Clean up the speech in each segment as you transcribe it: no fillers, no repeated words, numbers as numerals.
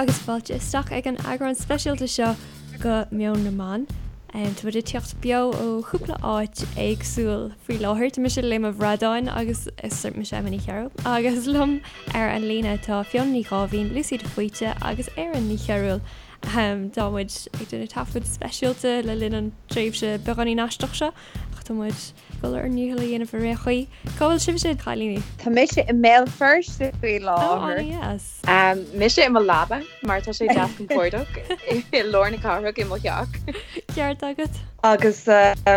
agus fáilte isteach ag an eagrán speisialta seo go Meon na mBan. Tá muid ag teacht beo ó chúpla áit éagsúil faoi láthair. Tá mise Léim an Bhradáin agus is mise Emma Ní Chearúil agus liom ar an líne tá Fiona Ní Dháimhín, Lucy de Faoite agus Erin Ní Chearúil. Tá muid ag déanamh taifead speisialta le linn an tréimhse beagáinín aisteach seo ach tá muid ag dul ár ndícheall a dhéanamh ar aon chaoi. Cá bhfuil sibhse, a chailíní? Tá mise i mBéal Feirste faoi Ó, láthair. an-dheas. Mise i mo leaba mar tá sé deas compordach i lár na cathrach i mo theach. Ceart agat. Agus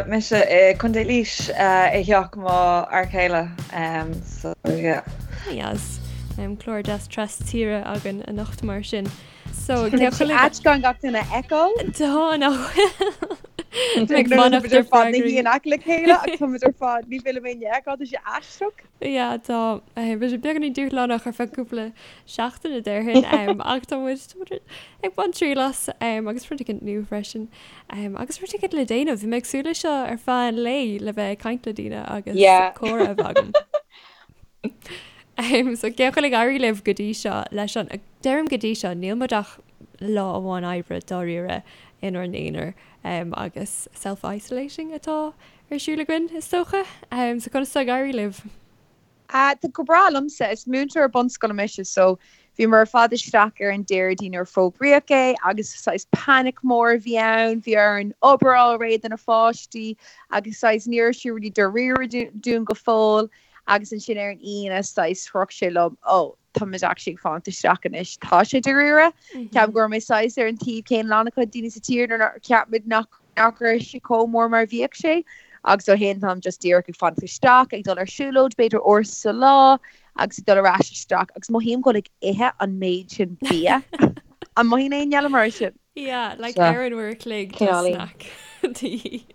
mise i Contae Laois i theach mo fhear céile so yeah. An-dheas. Clár deas tras tíre againn anocht mar sin. So, Tá sé ait gan gach duine a fheiceáil. Tá, nach bhfuil? Ag fanacht ar fad na in aice le chéile ach táimid ar fad ní bhfuil mé fheiceáil, tá sé aisteach. Yeah, tá bhí sé beagáinín dúshlánach ar feadh cúpla seachtaine déarfainn ach tá muid ag baint triail as agus rud éicint nua freisin agus rud éicint le déanamh. Bhí mé ag súil leis seo ar feadh an lae le bheith ag caint le daoine agus comhrá a bheith agam. So cén chaoi a bhfuil ag éirí libh go dtí seo leis an, deirim go dtí seo, níl muid ach lá amháin oibre dáiríre inár n-aonar agus self-isolating atá ar siúl againn is dócha. So conas tá ag éirí libh? Tá go breá liomsa. Is múinteoir bunscoile mise so bhíomar ar fad isteach ar an Déardaoin nuair a fógraíodh é agus saghas panic mór a bhí ann, bhí orainn obair a fháil réidh do na pháistí agus saghas ní raibh sé really dáiríre dúinn go fóill. Agus ansin ar an Aoine, saghas, shroich sé liom, oh, tá muid actually ag fanacht isteach anois, tá sé dáiríre. Ceapaim go raibh mé saghas ar an taobh céanna le an-chuid daoine sa tír nuair nár cheap muid nach nach raibh sé chomh mór mar a bhíodh sé. Agus ó shin táim just díreach ag fanacht isteach, ag dul ar siúlóid b'fhéidir uair sa lá agus ag dul ar ais isteach agus mothaím go bhfuil ag ithe an méid sin bia. An mothaíonn éinne eile mar sin? Yeah, like ar an uair a chloig tá snack de dhíth.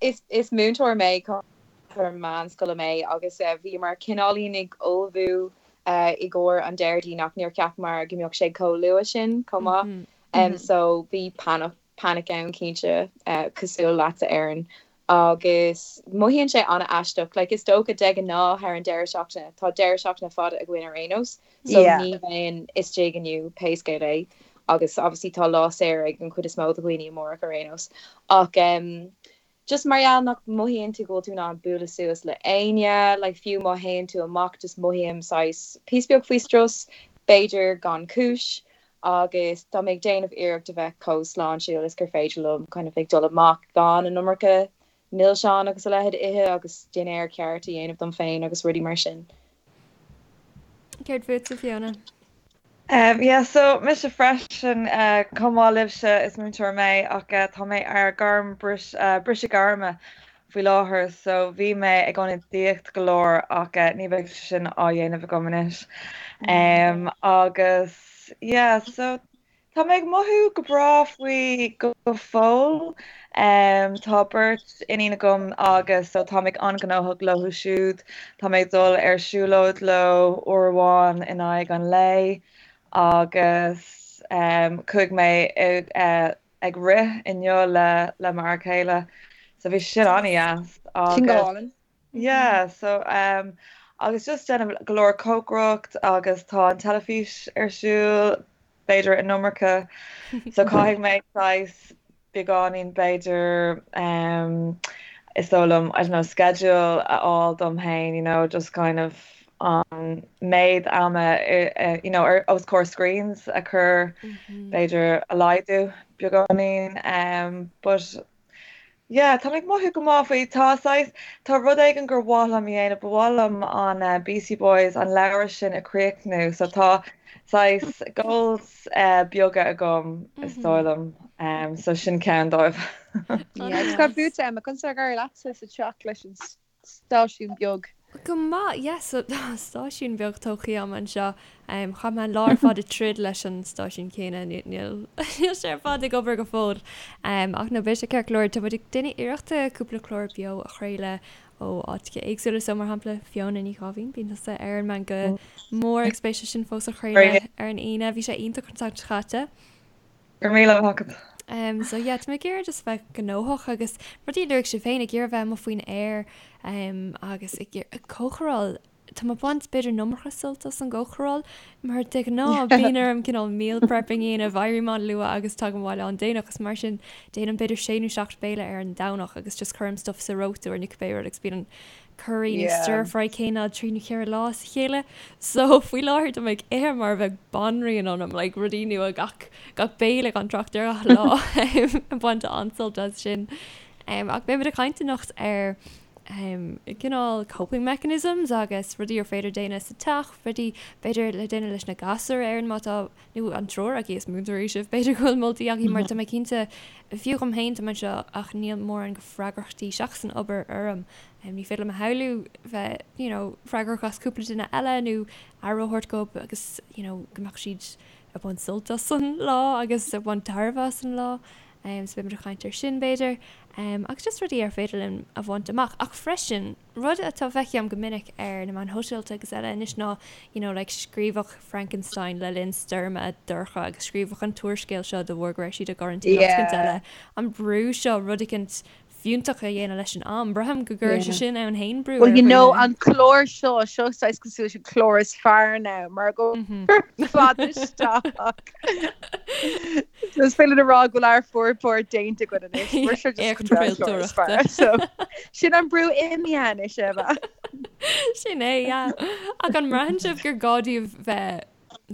Is múinteoir mé, múinteoir meánscoile mé agus bhíomar cineáilín ag ullmhú i gcomhair an Déardaoin ach níor cheapamar go mbeadh sé chomh luath sin chomh maith. So bhí panic ann cinnte, cosúil leatsa Erin. Agus mothaíonn sé an-aisteach, like is dócha de ghnáth thar an deireadh seachtaine, tá deireadh seachtaine fada againn ar aon nós, so ní bheinn istigh inniu pé scéal é agus obviously tá lá saor ag an chuid is mó de dhaoine amárach ar aon nós. Ach em just mar gheall nach mothaíonn tú go bhfuil tú in ann bualadh suas le éinne, like fiú má théann tú amach just mothaím saghas píosa beag faoi strus, b'fhéidir gan cúis agus tá mé ag déanamh iarracht a bheith chomh sláintiúil is gur féidir liom, kind of ag dul amach gan an iomarca milseáin agus a leithéid a ithe agus dinnéar ceart a dhéanamh dom féin agus rudaí mar sin. Céard fútsa, Fiona? Um, yeah, so mise freisin, uh, chomh maith libhse is múinteoir mé ach uh, tá mé ar gairm bris, uh, briseadh gairme faoi láthair so bhí mé ag ionadaíocht go leor ach uh, ní bheidh sé sin á dhéanamh agam anois. Um, agus yeah, so Tá mé ag mothú go breá faoi go fóill. Tá beirt iníon agam agus so tá mé an-ghnóthach leo siúd. Tá mé ag dul ar siúlóid leo uair amháin in aghaidh an lae agus chuaigh mé ag rith inniu le le m'fhear céile so bhí sin an-dheas agus. Sin go hálainn. Yeah, so um, agus just déanamh go leor cócaireacht agus tá an teilifís ar siúl, b'fhéidir an iomarca, so caithfidh mé saghas beagáinín b'fhéidir um, is dóigh liom, I don't know, schedule a fháil dom féin, you know, just kind of an méid ama, you know, ar os comhair screens a chur b'fhéidir a laghdú beagáinín, um, but Yeah, tá mé ag mothú go maith faoi. Tá saghas, tá rud éigin gur mhaith liom a dhéanamh, ba mhaith liom an Beastie Boys, an leabhar sin a chríochnú. So tá saghas goals beaga agam is dóigh liom. So sin ceann dóibh. Yeah, agus cad fútsa Emma, conas atá ag éirí leatsa sa teach leis an stáisiún beag. Go maith, yes, so stáisiún beag tógtha agam anseo. Chaith mé an lá ar fad ag troid leis an stáisiún céanna, níl sé ar fad ag obair go fóill. Ach no, beidh sé ceart go leor. Tá muid ag déanamh iarrachta cúpla clár beo a chraoladh ó áiteacha éagsúla, so mar shampla Fiona Ní Dháimhín, bíonn tusa ar an Meangadh Mór agus beidh sé sin fós á chraoladh ar an Aoine. Bhí sé iontach an tseachtain seo caite. Go raibh míle maith agat. So yeah, tá mé ag iarraidh just bheith gnóthach agus rudaí a luaigh sibh féin, ag iarraidh bheith amuigh faoin aer agus ag iarraidh cócaráil. Tá mé ag baint b'fhéidir an iomarca sult as an gcócaráil mar de ghnáth bíonn orm cineál meal prepping a dhéanamh, éirím an-luath agus tagaim abhaile an-déanach agus mar sin déanaim b'fhéidir sé nó seacht béile ar an Domhnach agus just cuirim stuff sa reoiteoir nó cibé rud agus bíonn an curry nó stir fry céanna trí nó cheithre lá as a chéile. So faoi láthair tá mé ag ithe mar a bheadh banríon ionam, like rudaí nua gach gach béile gan trácht ar gach lá ag baint an-sult as sin. Ach beimid ag caint anocht ar cineál coping mechanisms agus rudaí ar féidir déanamh sa teach, rudaí b'fhéidir le déanamh leis na gasúir ar má tá, nó an triúr agaibh is múinteoirí sibh, b'fhéidir go bhfuil moltaí agaibh mar tá mé cinnte, fiú dhom féin tá mé anseo ach níl mórán de freagrachtaí seachas an obair orm. Ní féidir liom a shamhlú bheith you know freagrach as cúpla duine eile nó aire a thabhairt dóibh agus you know go mbeadh siad ag baint sult as an lá agus ag baint tairbhe as an lá. So beimid ag caint ar sin b'fhéidir. Agus just rudaí ar féidir linn a bhaint amach. Ach freisin, rud atá feicim go minic ar na meáin shóisialta agus eile anois ná you know like scríobhadh Frankenstein le linn stoirme dorcha agus scríobhadh an t-úrscéal seo de bharr go raibh siad i gcoraintín nó rud eile. An brú seo rud eicint fiúntach a dhéanamh leis an am. Braithim go gcuireann sé sin ann féin brú Well you know an clár seo, seo saghas cosúil leis an clár is fearr now mar go fad isteach. So is féidir a rá go bhfuil ár bhformhór déanta againn anois. Mar seo just an clár is fearr. So sin an brú imithe anois Eva. Sin é, yeah. Ach an mbraitheann sibh gur gá daoibh bheith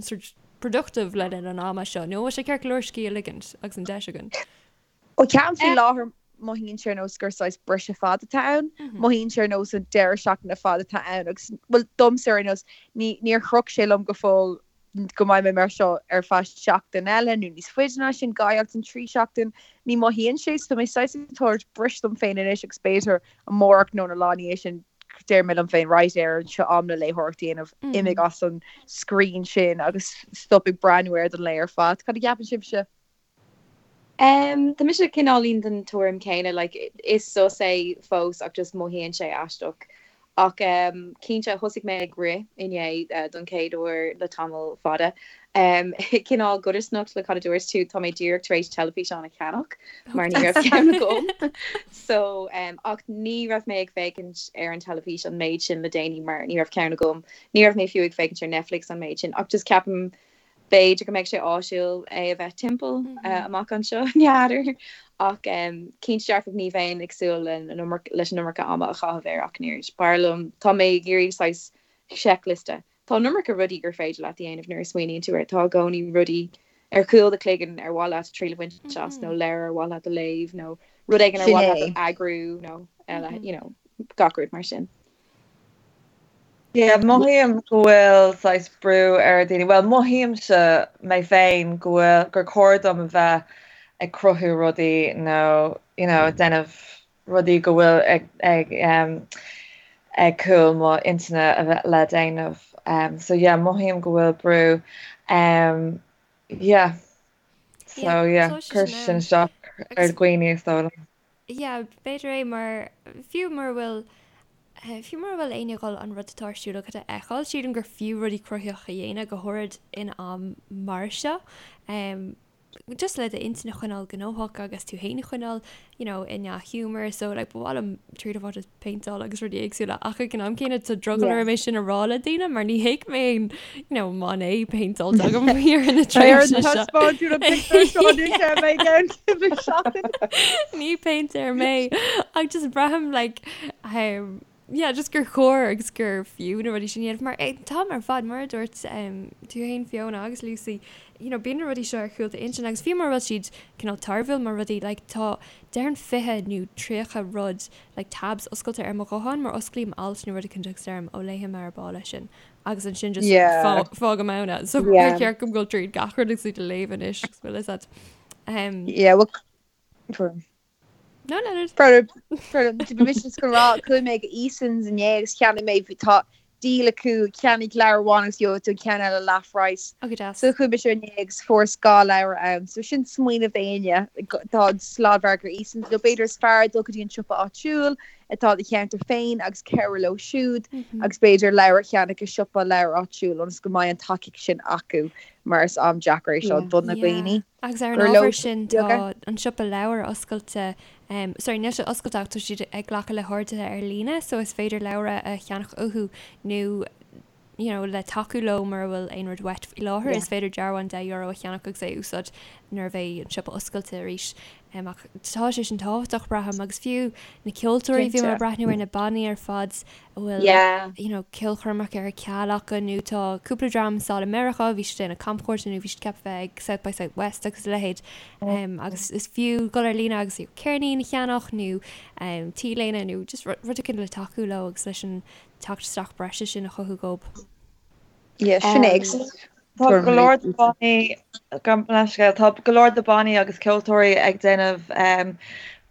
sort productive le linn an ama seo, nó bhfuil sé ceart go leor scíth a ligint agus an deis againn? Ó ceapaim faoi láthair mothaíonn sé ar nós gur saghas briseadh fada atá ann. Mothaíonn sé ar nós an deireadh seachtaine fada atá ann agus, bhuel, domsa ar aon nós, ní, níor shroich sé liom go fóill go mbeidh mé mar seo ar feadh seachtain eile nó níos faide ná sin, dhá sheachtain, trí sheachtain, ní mothaíonn sé, so tá mé saghas ag tabhairt briseadh dom féin anois agus b'fhéidir amárach nó na lá ina dhiaidh sin deir mé liom féin, right, Erin, seo am le léitheoireacht a dhéanamh, imigh as an screen sin agus stop ag breathnú air don lae ar fad. Cad a cheapann sibhse? Tá mise cineáilín den tuairim céanna, like is sos é fós ach just mothaíonn sé aisteach. Ach cinnte thosaigh mé ag rith inné don chéad uair le tamall fada. Cineál codarsnacht le cad a dúirt tú, tá mé díreach tar éis teilifíseán a cheannach mar ní raibh ceann agam. So ach ní raibh mé ag féachaint ar an teilifís an méid sin le déanaí mar ní raibh ceann agam. Ní raibh mé fiú ag féachaint ar Netflix an méid sin ach just ceapaim B'fhéidir go mbeidh sé áisiúil é a bheith timpeall amach anseo, n'fheadar. Ach cinnte dearfach ní bheinn ag súil leis an iomarca ama a chaitheamh air ach an oiread. B'fhearr liom, tá mé ag iarraidh saghas seicliosta. Tá an iomarca rudaí gur féidir leat a dhéanamh nuair a smaoiníonn tú air. Tá i gcónaí rudaí ar chúl do chloigeann ar mhaith leat triail a bhaint as nó leabhar ar mhaith leat a léamh nó rud éigin ar mhaith leat a eagrú nó eile, you know, gach rud mar sin. Yeah, mothaím go bhfuil saghas brú ar daoine, bhuel mothaímse mé féin go bhfuil, gur chóir dom a bheith ag cruthú rudaí nó you know ag déanamh rudaí go bhfuil ag ag um, ag cúl mo intinne a bheith le déanamh. Um, so yeah, mothaím go bhfuil brú. Um, yeah. So yeah, cuir sin isteach ar dhaoine is dóigh liom. Yeah, b'fhéidir é mar, fiú mura bhfuil, fiú mura bhfuil éinne ag dul an rud atá ar siúl agat a fheiceáil, sílim gur fiú rudaí cruthaitheacha a dhéanamh, go háirid in am mar seo. Just le d'intinn a choinneáil gnóthach agus tú féin a choinneáil, you know, i ndea-ghiúmar. So, like, ba mhaith liom triail a bhaint as péinteáil agus rudaí éagsúla ach ag an am céanna tá drogall orm é sin a rá le daoine mar ní hé go mbeidh you know, Monet péinteáilte agam ar na tréimhse seo. Ní péintéir mé ach just braithim like um, yeah, just gur chóir agus gur fiú na rudaí sin a dhéanamh mar an t-am ar fad mar a dúirt um, tú féin Fiona agus Lucy you know, bíonn na rudaí seo ar chúl d'intinn agus fiú mura bhfuil siad cineál tairbhiúil mar rudaí like, tá déarfainn 20 nó 30 rud like tabs oscailte ar mo ghuthán mar osclaím alt nó rud éicint agus deirim ó léifidh mé ar ball é sin agus ansin just Yeah. fágaim ann é. So Yeah. ar cheart dom dul tríd gach rud agus iad a léamh anois agus bhfuil fhios agat. Um, Yeah, well, no, no, no. Bhí mise just ag rá chuaigh mé go Eason's inné agus cheannaigh mé bhí- tá deal acu ceannaigh leabhar amháin agus gheobhaidh tú an ceann eile leath phraghas. Ó go deas. So chuaigh mise inné agus fuaireas dhá leabhar ann. So sin smaoineamh d'éinne. Tá an sladmhargadh Eason's nó b'fhéidir is fearr dul go dtí an siopa áitiúil. atá i do cheantar féin agus cabhrú leo siúd agus b'fhéidir leabhar a cheannach i siopa leabhar áitiúil ionas go mbeidh an tacaíocht sin acu mar is am deacair é seo do na daoine. Agus ar an ábhar sin tá an siopa leabhar oscailte, sorry níl sé oscailte ach tá siad ag glacadh le horduithe ar líne so is féidir leabhra a cheannach uathu nó you know, le tacú leo mura bhfuil aon rud uait faoi láthair, is féidir dearbhán €10 a cheannach agus é a úsáid nuair a bheidh an siopa oscailte arís. Um, ach tá sé sin tábhachtach, braithim, agus fiú na ceoltóirí, bhí mé ag breathnú ar na bannaí ar fad a bhfuil yeah. you know, ceolchoirmeacha ar ceal acu nó tá cúpla dream sall i Meiriceá, bhí siad ag déanamh camchuairte nó bhí siad ceaptha bheith ag South by South West agus a leithéid. Um, agus is fiú dul ar líne agus ceirnín a cheannach nó um, t-léine nó just rud éicint le tacú leo agus leis an teacht isteach breise sin a chothú dhób. Yeah, sin é. Tá go leor de bannaí, gabh mo leithscéal, tá go leor de bannaí agus ceoltóirí ag déanamh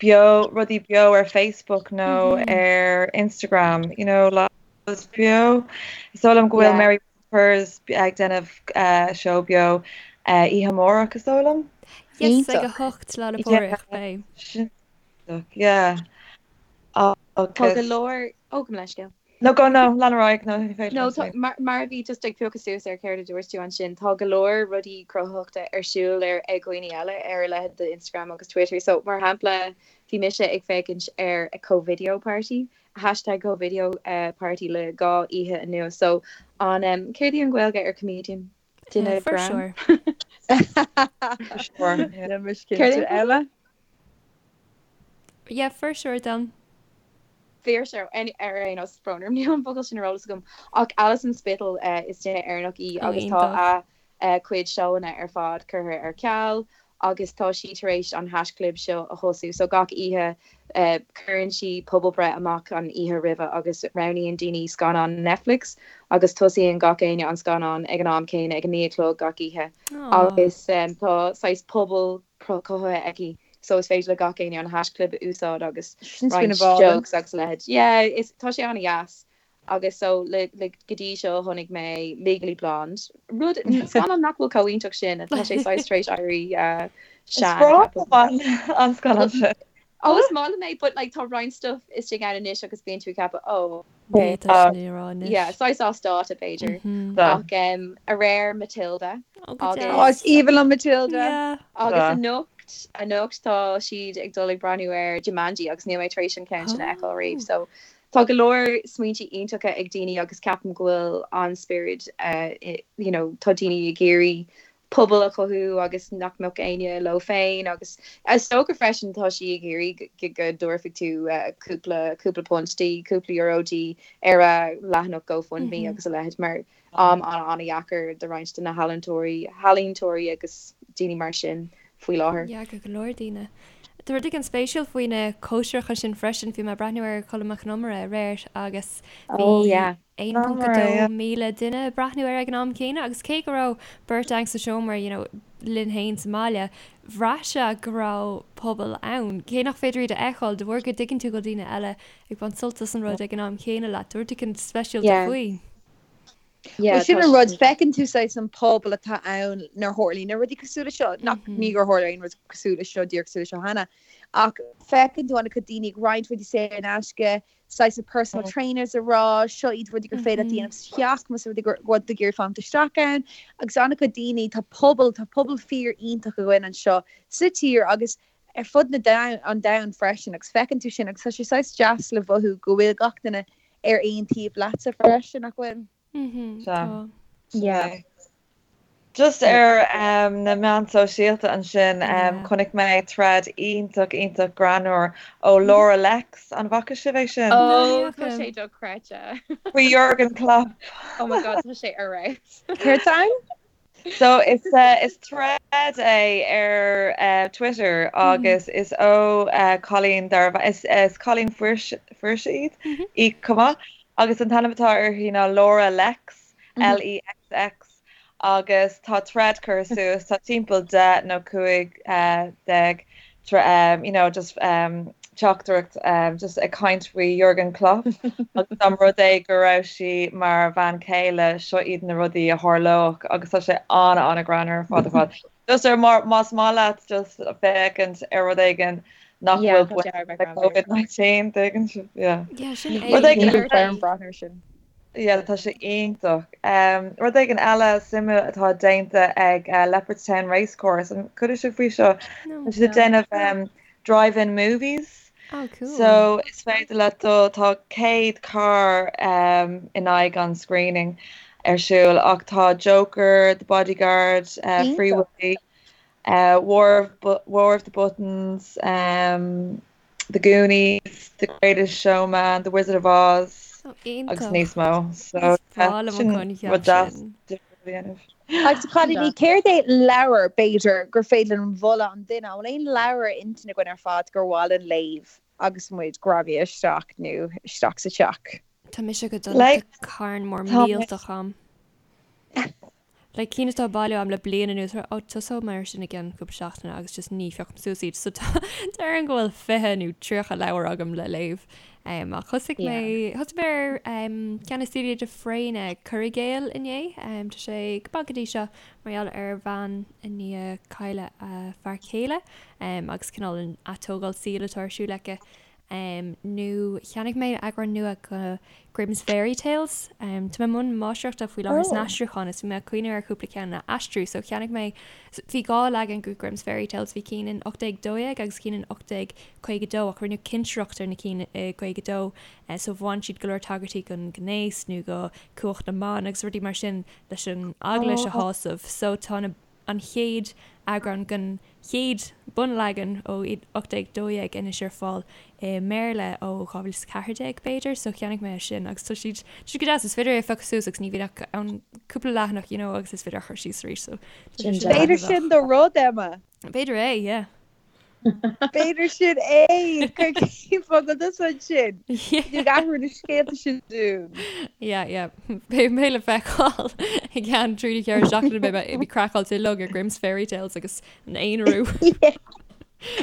beo, rudaí beo ar Facebook nó ar Instagram, you know, lives beo. Is dóigh liom go bhfuil Mary Peppers ag déanamh seó beo oíche amárach, is dóigh liom. Yes, ag 8 Lá 'le Pádraig, beidh. Sin yeah. Tá go leor, ó, gabh mo leithscéal. No, go, no, lean ar aghaidh, no, ní féidir No, tá, mar, mar a bhí just ag piocadh suas ar céard a dúirt tú ansin, tá go leor rudaí cruthaitheachta ar siúl ar, ag dhaoine eile ar a leithéid de Instagram agus Twitter. So, mar shampla, bhí mise ag féachaint ar a Covideo Party, hashtag Covideo Party le 2 oíche anuas. So, an, em, céard í an Ghaeilge ar comedian? Duine greann? Fuirseoir. Níl mise cinnte. Eile? Yeah, fuirseoir dom. Fuirseoir, ar aon nós, brón orm, níl an focal sin ar eolas agam, ach Alison Spittle, is duine Éireannach í agus tá a cuid seóanna ar fad curtha ar ceal agus tá sí tar éis an haischlib seo a thosú. So gach oíche cuireann sí pobalbhreith amach an oíche roimhe agus roghnaíonn daoine scannán Netflix agus tosaíonn gach éinne an scannán ag an am céanna ag a 9 a chlog gach oíche agus tá saghas pobal cothaithe aici so is féidir le gach éinne an haischlib a úsáid agus roinnt jokes agus a leithéid. Yeah, is tá sé an-dheas agus so le le go dtí seo chonaic mé Legally Blonde, rud scannán nach bhfuil chomh iontach sin, tá sé saghas tar éis éirí sean. Is breá liom an scannán sin. Oh, is maith liom é, but like tá roinnt stuff istigh ann anois agus bíonn tú ag ceapadh oh, Ní tá sin á rá anois. Yeah, saghas as dáta b'fhéidir. Ach aréir Matilda Oh, go agus deas. Oh, is aoibhinn liom Matilda. Yeah. Agus anocht, anocht tá siad ag dul ag breathnú ar Jumanji agus níl mé tar éis an ceann sin a fheiceáil riamh. So tá go leor smaointe iontacha ag daoine agus ceapaim go bhfuil an-spiorad you know, tá daoine ag iarraidh pobal a chothú agus nach mbeadh éinne leo féin agus is dócha freisin tá sí ag iarraidh go dtabharfaidh tú cúpla cúpla punt di, cúpla euro di ar a leathanach GoFundMe agus a leithéid mar am an-an-dheacair do roinnt de na healaíontóirí healaíontóirí agus daoine mar sin faoi láthair. Yeah, go leor daoine. Tá rud éigin spéisiúil faoi na cóisireacha sin freisin, bhí mé ag breathnú ar Colm Mac Con Iomaire aréir agus bhí Oh yeah. 1.2 míle duine ag breathnú air ag an am céanna agus cé go raibh beirt againn sa seomra you know linn féin sa mbaile, bhraith sé go raibh pobal ann. Cé nach féidir iad a fheiceáil, de bharr go dtuigeann tú go bhfuil daoine eile ag baint sult as an rud ag an am chéanna leat, tá rud éigin speisialta Yeah. faoi. Yeah, Well, sin tá an rud, sin. feiceann tú saghas an pobal atá ann nuair a tharlaíonn na rudaí cosúil le seo, nach, ní gur tharla aon rud cosúil le seo, díreach cosúil le seo cheana, ach feiceann tú an-chuid daoine ag roinnt rudaí saor in aisce, saghas na personal trainers ag rá, seo iad rudaí gur féidir leat a dhéanamh sa teach, más rud é go bhfuil tú ag iarraidh fanacht isteach ann, agus an-chuid daoine, tá pobal, tá pobal fíor iontach againn anseo sa tír agus ar fud na domhan, an domhain freisin agus feiceann tú sin agus tá sé saghas deas le mhothú go bhfuil gach duine ar aon taobh leatsa freisin, nach bhfuil? Tá. Yeah. Just ar na meáin sóisialta ansin, chonaic mé thread iontach, iontach greannmhar ó Laura Lexx. An bhfaca sibh é sin? Oh, tá sé dochreidte. Faoi Jurgen Klopp. Oh my God, tá sé ar fheabhas. Céard tá ann? So is is thread é ar Twitter agus is ó cailín darb is is cailín fuirse fuirse iad í chomh maith agus an t-ainm atá uirthi ná Laura Lexx, L-E-X-X. agus tá thread curtha suas, tá timpeall 10 nó 15 you know just teachtaireacht just ag caint faoi Jurgen Klopp agus dá mba rud é go raibh sí mar bhean chéile seo iad na rudaí a tharlódh agus tá sé an-an-ghreannmhar ar fad ar fad. Just ar más maith leat just féachaint ar rud éigin. nach bhfuil baint le Covid-19, tuigeann sibh? Yeah. Yeah, sin é. Rud éigin Níl orm breathnú air sin. Yeah, tá sé iontach. Rud éigin eile suimiúil atá déanta ag Leopardstown Racecourse, an chuala sibh faoi seo? No. Tá siad ag déanamh drive-in movies. Oh, cool. So is féidir leat dul, tá 100 carr in aghaidh an screening ar siúl ach tá Joker, The Bodyguard, Free Iontach. Willy, War of, War of the Buttons, The Goonies, The Greatest Showman, The Wizard of Oz Oh, agus iontach. níos mó. So Is breá liom an sin coincheap rud deas sin. difriúil a dhéanamh. Agus a chailíní, céard é leabhar, b'fhéidir, gur féidir linn mholadh an duine? An bhfuil aon leabhar ar intinn againn ar fad gur mhaith linn léamh agus muid greamaithe isteach nó isteach sa teach? Tá mise go dona, Like, tá carn mór tá mé. millteach a'm. Like cinn atá bailithe a'm le bliain anuas, oh tosóidh mé ar sin i gceann cúpla seachtaine agus just ní phiocaim suas iad so tá déarfainn go bhfuil 20 nó 30 leabhar agam le léamh. Um, ach thosaigh mé thosaigh mé ar um, ceann le Celia de Fréine Cur i gCéill inné. Um, tá sé go maith go dtí seo mar gheall ar bhean i ndiaidh cailleadh a fear céile um, agus cineál an atógáil saoil atá ar siúl aici. Nó cheannaigh mé eagrán nua de Grimm's Fairy Tales. Tá mé i mbun máistreachta faoi láthair san aistriúchán is bhí mé ag cuimhneamh ar chúpla ceann a aistriú so cheannaigh mé, bhí 2 leagan de Grimm's Fairy Tales, bhí cinn in 1812 agus cinn in 1852 ach rinneadh cinsireacht ar na cinn i 52 so bhain siad go leor tagairtí don ghnéas nó do cumhacht na mban agus rudaí mar sin leis an eaglais a shásamh so tá na an chéad eagrán den chéad bunleagan ó 1812 anois ar fáil i mBéarla ó 2014 b'fhéidir, so cheannaigh mé é sin agus tá siad tá siad go deas, is féidir é a phiocadh suas agus ní bhíonn ach ann cúpla leathanach you know agus is féidir a chur síos arís so tá sé sin B'fhéidir sin do rud, Emma. B'fhéidir é, yeah. B'fhéidir sin é! Cuir cén fáth go tusa ansin. Ní athrú na scéalta sin dúinn. Yeah, yeah. Beidh mé le feiceáil i gceann 3 nó 4 seachtaine beidh mé ag craiceáilte uilig ar Grimm's Fairy Tales agus an aonarú.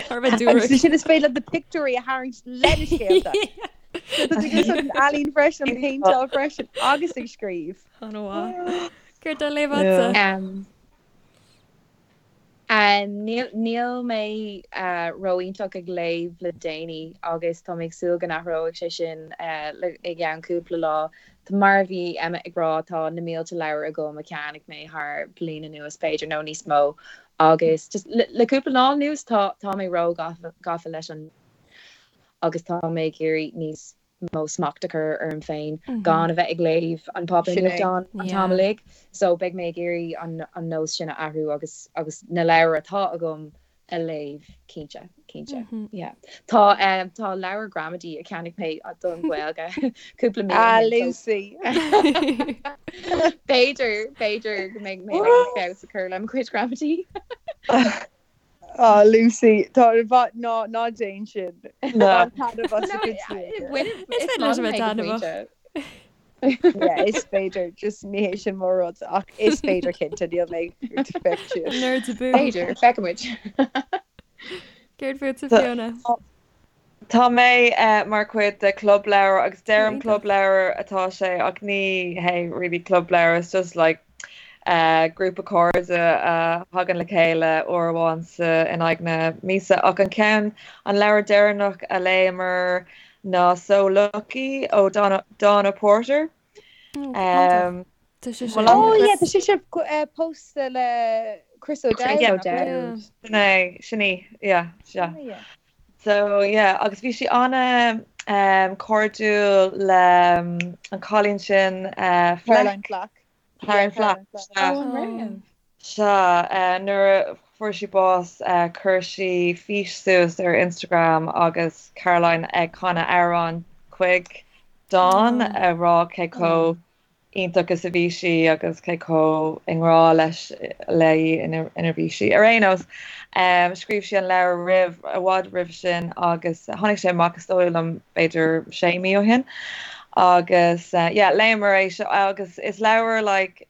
Thar a bheith Agus dúrach. sin is féidir leat na pictiúirí a tharraingt le na scéalta. So tá tú ag úsáid an ealaín freisin, an péinteáil freisin agus ag scríobh. An-mhaith. Céard atá á léamh agatsa? Um, Níl mé ró-iontach ag léamh le déanaí agus tá mé ag súil go n-athróidh sé sin i gceann cúpla lá. Mar a bhí Emma ag rá, tá na mílte leabhar agam a cheannaigh mé thar bliain anuas b'fhéidir nó níos mó agus just le cúpla lá anuas tá tá mé ró-gafa leis an agus tá mé ag iarraidh níos mó smacht a chur orm féin gan a bheith ag léamh an páipéar Sin é. nuachtáin an t-am uilig. So beidh mé ag iarraidh an an nós sin a athrú agus agus na leabhair atá agam a léamh cinnte, cinnte. Yeah. Tá eh tá leabhar gramadaí a cheannaigh mé don Ghaeilge cúpla mí ó Ah, shin so Lucy. b'fhéidir b'fhéidir go mbeidh mé in ann feabhas a chur le mo chuid gramadaí. Ah, Lucy, tá ná ná déan sin. Ná. Bain taitneamh as do chuid saoire. Is féidir leis a bheith taitneamhach. Yeah, is féidir, just ní hé sin mo rud, ach is féidir cinnte, níl mé ag féachaint síos. Nerds abú. B'fhéidir, feicfimid. Céard fútsa Fiona? Tá mé mar chuid de club leabhar agus deirim Iontach. club leabhar atá sé ach ní hé really club leabhar, it's just like grúpa cairde a thagann le chéile uair amháin sa in aghaidh na míosa ach an ceann, an leabhar deireanach a léamar ná So Lucky ó Donna Porter. Oh, iontach. Tá sé sin. Oh yeah, tá sise pósta le Chris O'Dowd. Chris O'Dowd. Sin é, sin í, yeah, sea. So yeah, agus bhí sí ana um, cairdiúil le um, an cailín sin uh, Caroline Flack. Caroline Flack. Oh, an raibh? Sea, uh, nuair a fuair sí bás uh, chuir sí fís suas ar Instagram agus Caroline ag canadh amhrán chuig Dawn ag rá cé chomh iontach is a bhí sí agus cé chomh i ngrá leis léi ina bhí sí. Ar aon nós, scríobh sí an leabhar roimh, i bhfad roimh sin agus tháinig sé amach is dóigh liom b'fhéidir sé mí ó shin agus yeah léamar é seo agus is leabhar like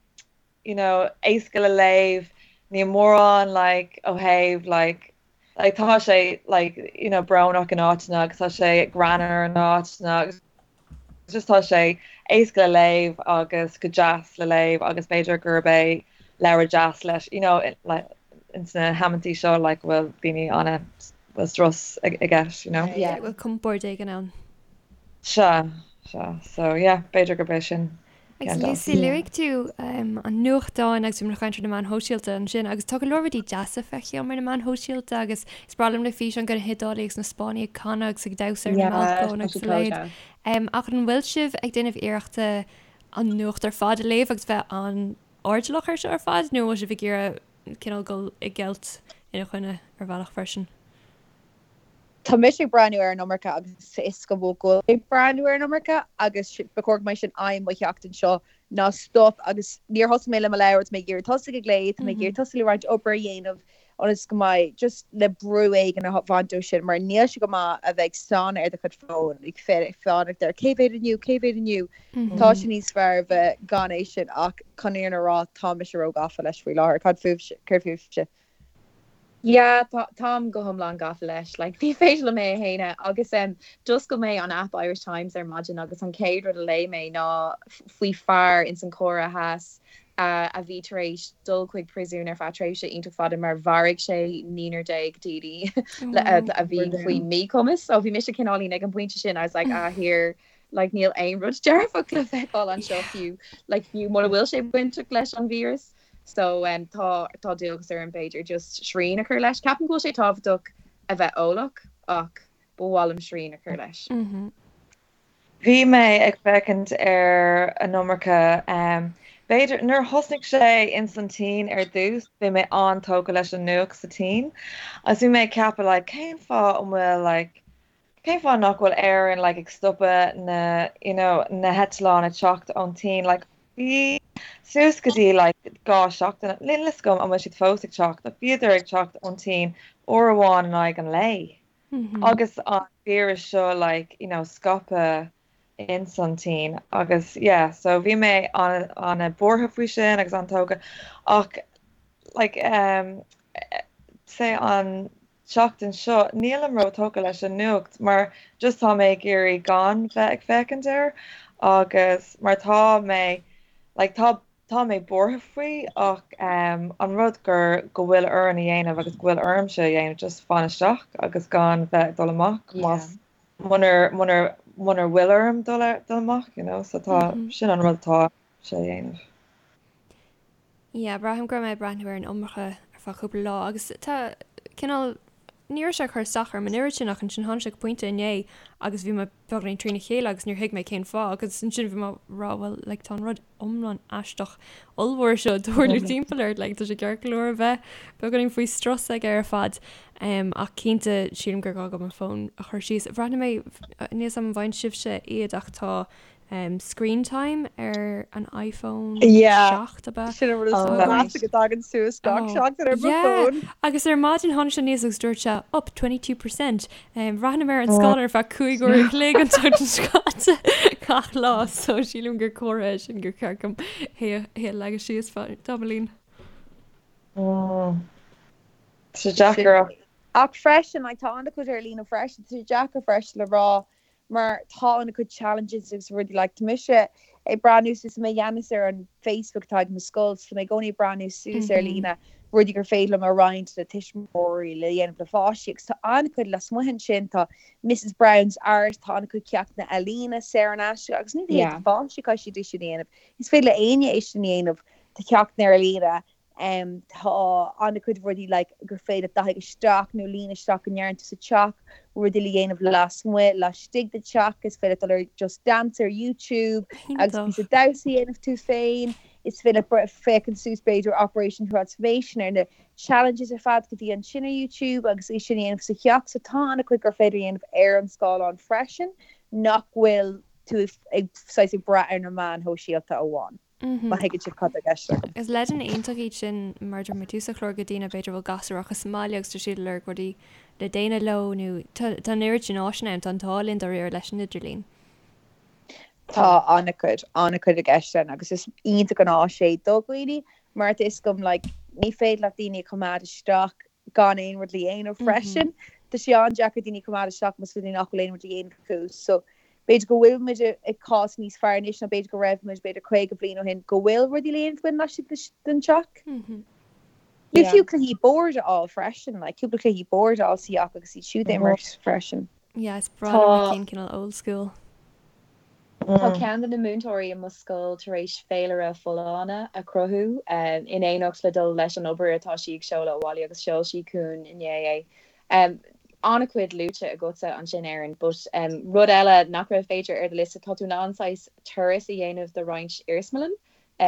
you know éasca le léamh, níl mórán like ó thaobh like like tá sé like you know brónach in áiteanna agus tá sé greannmhar in áiteanna agus just tá sé éasca le léamh agus go deas le léamh agus b'fhéidir gurb é leabhar deas leis you know like ins na hamantaí seo like go bhfuil daoine ana. Bhfuil strus i gceist, you know? Yeah. Bhfuil compord éigin ann. Sea, sea. So, yeah, b'fhéidir gurb é sin Agus ceann de. Lucy, luaigh tú an nuachtán agus bhí muid ag caint ar na meáin shóisialta ansin agus tá go leor rudaí deasa feicthe agam ar na meáin shóisialta agus is breá liom na físeáin de na hIodálaigh agus na Spáinnigh ag canadh agus ag damhsa ar na balcóin agus a leithéid. Ach an bhfuil sibh ag déanamh iarrachta an nuacht ar fad a léamh agus bheith an-airdeallach air seo ar fad nó an bhfuil sibh ag iarraidh cineál dul i gceilt ina choinne ar bhealach freisin. Tá mise ag breathnú ar an iomarca agus is go bhfuil go ag breathnú ar an iomarca agus ba chóir go mbeidh sin aidhm mo sheachtain seo ná stop agus níor thosaigh mé le mo leabhar, tá mé ag iarraidh tosaigh ag léamh, tá mé ag iarraidh tosaigh le roinnt obair a dhéanamh ionas go mbeidh just le brú éigin a bhaint ó sin mar níl sé go maith a bheith ag stánadh ar do chuid fóin, ag fanacht ar cé mhéad inniu, cé mhéad inniu. Tá sé níos fearr bheith gan é sin ach chun an fhírinne a rá tá mise ró-ghafa leis faoi láthair. Cad fúibhse? Céard fúibhse? Yeah, tá, táim go hiomlán gafa leis. Like, ní féidir liom é a shéanadh. Agus em, d'oscail mé an app Irish Times ar maidin agus an chéad rud a léigh mé ná faoi fear ins an Chóiré Theas a bhí tar éis dul chuig príosún ar feadh tréimhse iontach fada mar mharaigh sé naonúr déag daoine a bhí faoi mhíchumas. So bhí mise cineáilín ag an bpointe sin, I was like, ah, here, like níl aon rud dearfach le feiceáil anseo fiú, like fiú mura bhfuil sé bainteach leis an víreas. So um, tá tá dualgas orm b'fhéidir just srian a chur leis. Ceapaim go bhfuil sé tábhachtach a bheith eolach ach ba mhaith liom srian a chur leis. Mm -hmm. Bhí mé ag féachaint ar an iomarca um, b'fhéidir nuair thosnaigh sé ins an tSín ar dtús, bhí mé an-tógtha leis an nuacht sa tSín agus bhí mé ag ceapadh like cén fáth an bhfuil like cén fáth nach bhfuil Éirinn like ag stopadh na you know na heitleáin ag teacht ón tSín like bhí suas go dtí like 2 seachtain níl fhios agam an bhfuil siad fós ag teacht ach bhíodar ag teacht ón tSín uair amháin in aghaidh an lae. Agus an víreas seo like you know scaipthe ins an tSín agus yeah so bhí mé an-buartha faoi sin agus an-tógtha ach like um say an tseachtain seo nílim ró-tógtha leis an nuacht mar just tá mé ag iarraidh gan bheith ag féachaint air agus mar tá mé like tá Tá mé buartha faoi ach an rud gur go bhfuil orainn a dhéanamh agus go bhfuil ormsa a dhéanamh just fan isteach agus gan bheith ag dul amach más munar munar munar bhfuil orm dul dul amach you know so tá sin an rud atá sé a dhéanamh. Yeah, braithim go raibh mé ag breathnú ar an iomarca ar feadh cúpla lá agus tá cineál ní raibh sé ag cur isteach orm an oiread sin ach ansin tháinig sé go pointe inné agus bhí mé beagáinín trína chéile agus níor thuig mé cén fáth agus ansin bhí mé ag rá well like tá an rud iomlán aisteach ollmhór seo ag tarlú timpeall ort like tá sé ceart go leor a bheith beagáinín faoi strus aige ar fad um, ach cinnte sílim gur gá dom an fón a chur síos. Bhreathnaigh mé níl 'fhios a'm an bhfaigheann sibhse iad ach tá um, screen time ar an iPhone Yeah. 7 ab ea? Sin an rud is Oh, measa go dtagann suas gach Oh, seachtain ar mo yeah. fón. Agus ar maidin tháinig sé aníos agus dúirt sé up 22%. Um, bhreathnaigh mé ar an scáileán ar feadh 5 uair a chloig an tseachtain seo caite gach lá, so sílim gur comhartha é sin gur cheart dom é a é a leagadh síos feadh tamaillín. Mm. Tá sé deacair ach Ach freisin, like, tá an-chuid ar líne freisin, tá sé deacair freisin le rá mar tá an-chuid challenges agus rudaí like tá mise ag breathnú suas mé gceannas ar an Facebook atá ag mo scoil so tá mé i gcónaí ag breathnú suas ar líne rudaí gur féidir liom a roinnt le tuismitheoirí le dhéanamh le pháistí agus tá an-chuid lasmuigh ansin tá Mrs Brown's Art tá an-chuid ceachtanna ealaíne saor in aisce agus ní hé do pháistí caithfidh siad é sin a dhéanamh is féidir le éinne é sin a dhéanamh tá ceachtanna ar líne Tá an-chuid rudaí like gur féidir leat dathaigh isteach nó líon isteach go ndearna tú sa teach, rudaí le dhéanamh lasmuigh, laistigh de teach, is féidir leat dul ar Just Dance ar YouTube agus píosa damhsa a dhéanamh tú féin, is féidir leat féachaint suas b'fhéidir Operation Transformation ar na challenges ar fad go bhí ansin ar YouTube agus é sin a dhéanamh sa teach. So tá an-chuid gur féidir a dhéanamh ar an scáileán freisin nach bhfuil tú ag saghas ag brath ar na meáin shóisialta amháin. Má thuigeann sibh cad tá i gceist agam. Is leideanna iontach iad sin mar a dúirt mé tús an chláir do dhaoine b'fhéidir a bhfuil gasúir acu sa mbaile agus tá siad ag lorg rudaí le déanamh leo nó tá tá an oiread sin áiseanna ann, tá an t-ádh linn dáiríre leis an idirlíon. Tá an-chuid, an-chuid i gceist ann agus is iontach an áis é do dhaoine mar tá fhios agam like ní féidir leat daoine a choimeád isteach gan aon rud le dhéanamh freisin. Tá sé an-deacair daoine a choimeád isteach más rud é nach bhfuil aon rud le dhéanamh acu. So b'fhéidir go bhfuil muid i cás níos fearr anois ná b'fhéidir go raibh muid b'fhéidir 50 bliain ó shin go bhfuil rudaí le dhéanamh againn laistigh den teach. Nó fiú cluichí boird a fháil freisin, like cúpla cluichí boird a fháil sa theach agus iad siúd a imirt freisin. Yeah, is breá liom na cinn cineál old school. Tá ceann de na múinteoirí i mo scoil tar éis féilire folláine a chruthú in éineacht le dul leis an obair atá sí ag seoladh abhaile agus sheol sí chugainn inné é. An-chuid luaite agatsa ansin Erin, but rud eile nach raibh b'fhéidir ar do liosta, tá tú in ann saghas turas a dhéanamh de roinnt iarsmalann,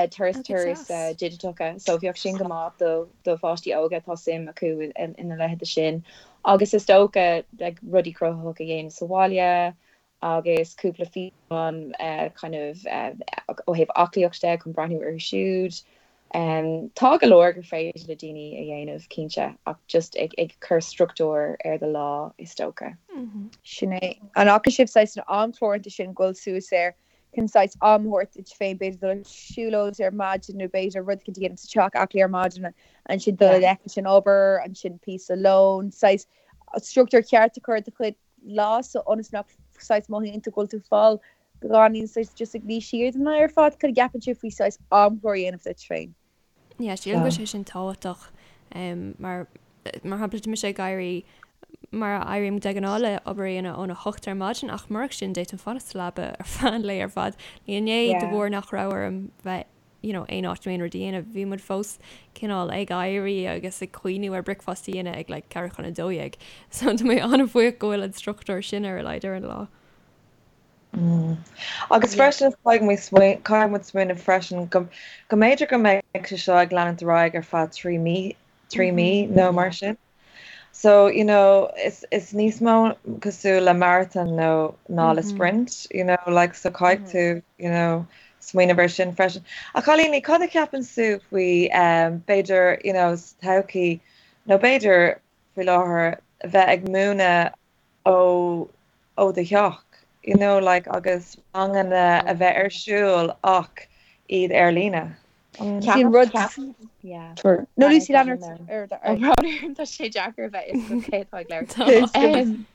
turas turas digiteacha, so bheadh sin go maith do do pháistí óga atá suim acu ina leithéid sin. Agus is dócha like rudaí cruthaitheacha a dhéanamh sa bhaile, agus cúpla físeán kind of ó thaobh aclaíocht de chun breathnú orthu siúd. Tá go leor gur féidir le daoine a dhéanamh, cinnte, ach just ag ag cur struchtúr ar do lá, is dócha. Sin é. An bhfaca sibh saghas an amchlár iontu sin ag dul suas air chun saghas am a thabhairt duit féin, b'fhéidir dul ar siúlóid ar maidin nó b'fhéidir rud éicint a dhéanamh sa teach, aclaí ar maidin, ansin dul i leith leis an obair, ansin píosa lóin, saghas struchtúr ceart a chur ar do chuid lá so ionas nach saghas mothaíonn tú go bhfuil tú fáil beagáinín saghas just ag luí siar don lá ar fad. Cad a cheapann sibh faoi saghas amchlár a dhéanamh duit féin? Yeah, sílim go bhfuil sé sin tábhachtach mar mar shampla tá mise ag éirí mar a éirím de ghnáth le obair a dhéanamh óna hocht ar maidin ach murach sin d'fhéadfainn fanacht sa leaba ar feadh an lae ar fad. Inné de bharr nach raibh orm bheith you know, aon áit nó aon rud a dhéanamh, bhí muid fós cineál ag éirí agus ag cuimhniú ar bricfeasta a dhéanamh ag like 11:45. So tá mé an-bhuíoch go bhfuil an struchtúr sin ar a laghad ar an lá. Mm. Agus freisin caithfidh caithfidh muid smaoineamh freisin go go mb'fhéidir go mbeidh sé seo ag leanúint ar aghaidh ar feadh 3 mí 3 mí nó mar sin. So, you know, is is níos mó cosúil le marathon nó ná le sprint, you know, like so caithfidh tú, you know, smaoineamh ar sin freisin. A chailíní, cad a cheapann sibh faoi um, b'fhéidir, you know, sa todhchaí nó b'fhéidir faoi láthair bheith ag múineadh ó ó do theach, you know, like agus ranganna a bheith ar siúl ach iad ar líne. Sin rud No Lucy lean ort Tá sé deacair a bheith is cé atá ag labhairt.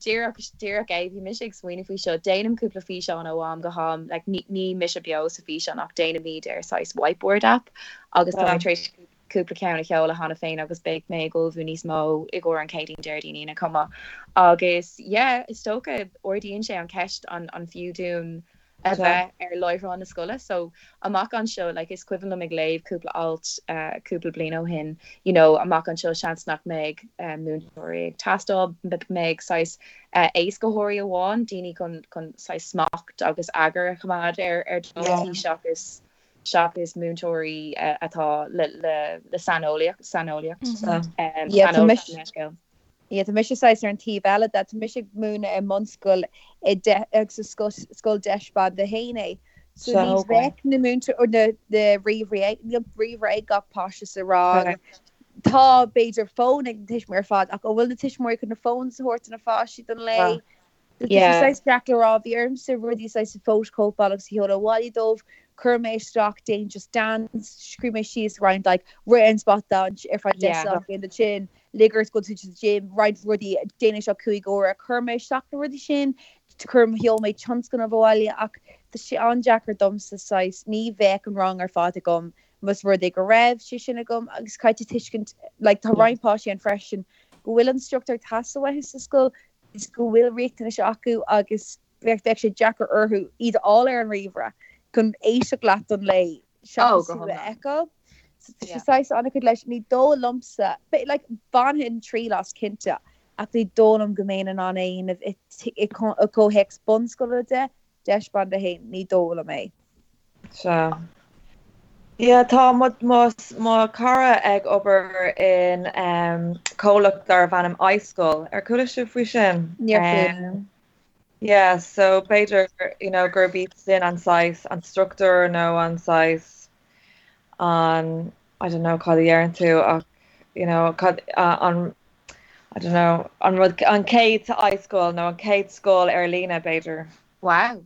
Díreach díreach é bhí mise ag smaoineamh faoi seo, déanaim cúpla físeán ó am go ham, like ní mise beo sa físeán ach déanaimid ar saghas whiteboard app agus tá mé tar éis cúpla ceann a sheoladh cheana féin agus beidh mé ag ullmhú níos mó i gcomhair an Chéadaoin Déardaoin Aoine chomh maith. Agus yeah, is dócha ardaíonn sé an cheist an an fiú dúinn a bheith ar láithreán na scoile. So amach anseo, like is cuimhin liom ag léamh cúpla alt cúpla bliain ó shin, you know, amach anseo seans nach mbeidh múinteoirí ag teastáil, mbeidh saghas éascaitheoirí amháin, daoine chun chun saghas smacht agus eagar a choimeád ar ar daltaí seachas seachas múinteoirí atá le le le saineolaíocht saineolaíocht saineolas an leithscéal. Yeah, tá mise saghas ar an taobh eile de. Tá mise ag múineadh i mbunscoil i de agus is scoil scoil deis ban 1 é. So ní bheadh na múinteoir na na ríomhairí níl ríomhaire ag gach páiste sa rang. Tá b'fhéidir fón ag na tuismitheoirí ar fad ach an bhfuil na tuismitheoirí chun na phones a thabhairt do na pháistí don lae? Tá sé saghas deacair le rá. Bhí ormsa rudaí saghas a phótachóipeáil agus a sheoladh abhaile dóibh. Chuir mé isteach déan Just Dance, scríobh mé síos roinnt like rith ar an spota ar feadh 10 soicind ansin, lig ort go bhfuil tú sa gym, roinnt rudaí, déan é seo 5 uaire. Chuir mé isteach na rudaí sin, chuir, sheol mé tionscnamh abhaile ach tá sé an-deacair domsa saghas, ní bheadh an rang ar fad agam más rud é go raibh sé sin agam agus caithfidh tú tuiscint like tá roinnt páistí ann freisin go bhfuil an struchtúr ag teastáil uathu sa scoil is go bhfuil riachtanais acu agus bheadh sé deacair orthu iad a fháil ar an ríomhaire chun éisteacht leat don lae seachas tú a fheiceáil. So tá sé saghas an-chuid leis. Ní dóigh liomsa, like bhainfinn triail as cinnte ach ní dóigh liom go mbeinn in ann é a dhéanamh i gcomhthéacs bunscoile de, deis band 1, ní dóigh liom é. Sea. Yeah, tá mo, mo, mo chara ag obair in comhlacht darbh ainm iScoil. Ar chuala sibh faoi sin? Níor chuala. Yeah, so b'fhéidir, you know, gurb iad sin an saghas, an struchtúr nó an saghas, an, I don't know cad a dheireann tú ach, you know, cad, an, I don't know, an rud, an chéad iScoil nó an chéad scoil ar líne b'fhéidir. Wow.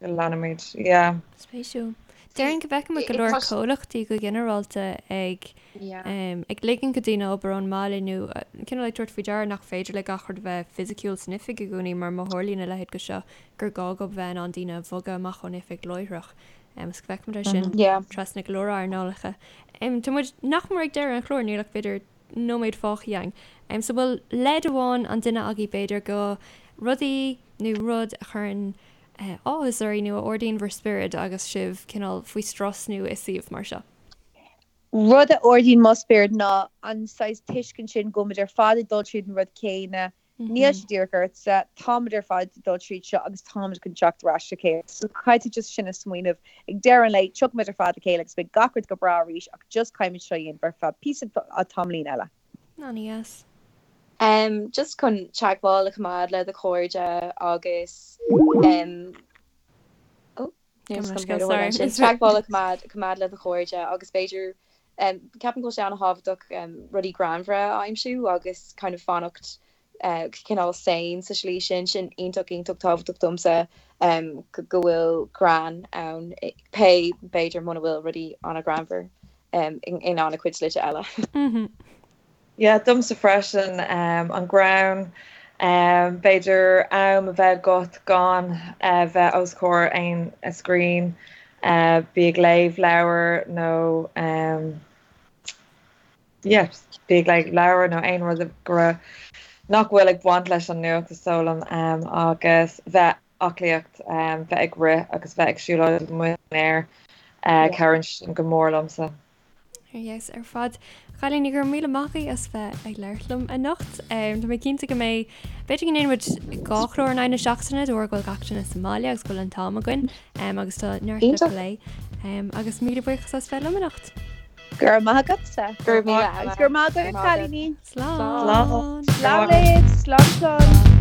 Go leanfaimid, yeah. Spéisiúil. Déarfainn go bhfeicimid go leor comhlachtaí go ginearálta ag ag ligean do dhaoine obair ón mbaile nó cineál ag tabhairt faoi deara nach féidir le gach rud a bheith fisiciúil san oifig i gcónaí mar má tharlaíonn a leithéid de seo gur gá dóibh bheith in ann daoine a bhogadh amach ón oifig láithreach. Is go bhfeicimid é sin trasna go leor earnálacha. Tá muid nach mór ag deireadh an chláir, níl ach b'fhéidir nóiméad fágtha againn. So bhfuil leid amháin an duine agaibh b'fhéidir go rudaí nó rud a chuireann áthas oraibh nó a ardaíonn bhur spiorad agus sibh cineál faoi strus nó i suíomh mar seo? Rud a ardaíonn mo spiorad ná an saghas tuiscint sin go bhfuil muid ar fad ag dul tríd an rud céanna, níl sé díreach ortsa, táimid ar fad ag dul tríd seo agus táimid chun teacht ar ais le chéile. So caithfidh tú just sin a smaoineamh. Ag deireadh an lae, tiocfaimid ar fad le chéile agus beidh gach rud go breá arís ach just caithfimid seo a dhéanamh ar feadh píosa tamaillín eile. An-deas. Just chun teagmháil a choimeád le do chairde agus oh teagmháil a choimeád le do chairde agus b'fhéidir ceapaim go bhfuil sé an-thábhachtach rudaí greannmhara a aimsiú agus kind of fanacht cineál sane sa slí sin, sin iontach iontach tábhachtach domsa go bhfuil greann ann pé b'fhéidir muna bhfuil rudaí an-ghreannmhar in an-chuid slite eile. Yeah, domsa freisin, an greann, b'fhéidir am a bheith agat gan bheith os comhair aon screen, bí ag léamh leabhar nó yeah, bí ag léamh leabhar nó aon rud go raibh nach bhfuil ag baint leis an nuacht is dóigh liom agus bheith aclaíocht, bheith ag rith agus bheith ag siúlóid amuigh san aer, cabhraíonn sin go mór liomsa. Ar dheas ar fad. A chailíní, go raibh míle maith agaibh as bheith ag labhairt liom anocht. Tá mé cinnte go mbeidh, b'fhéidir go ndéanfaidh muid dhá chlár in aghaidh na seachtaine de bharr go bhfuil gach duine sa mbaile agus go bhfuil an t-am againn agus tá neart le plé. Agus míle buíochas as bheith liom anocht. Go raibh maith agatsa. Go raibh míle Agus go raibh maith agaibh, a chailíní. Slán. Slán libh. Slán slán.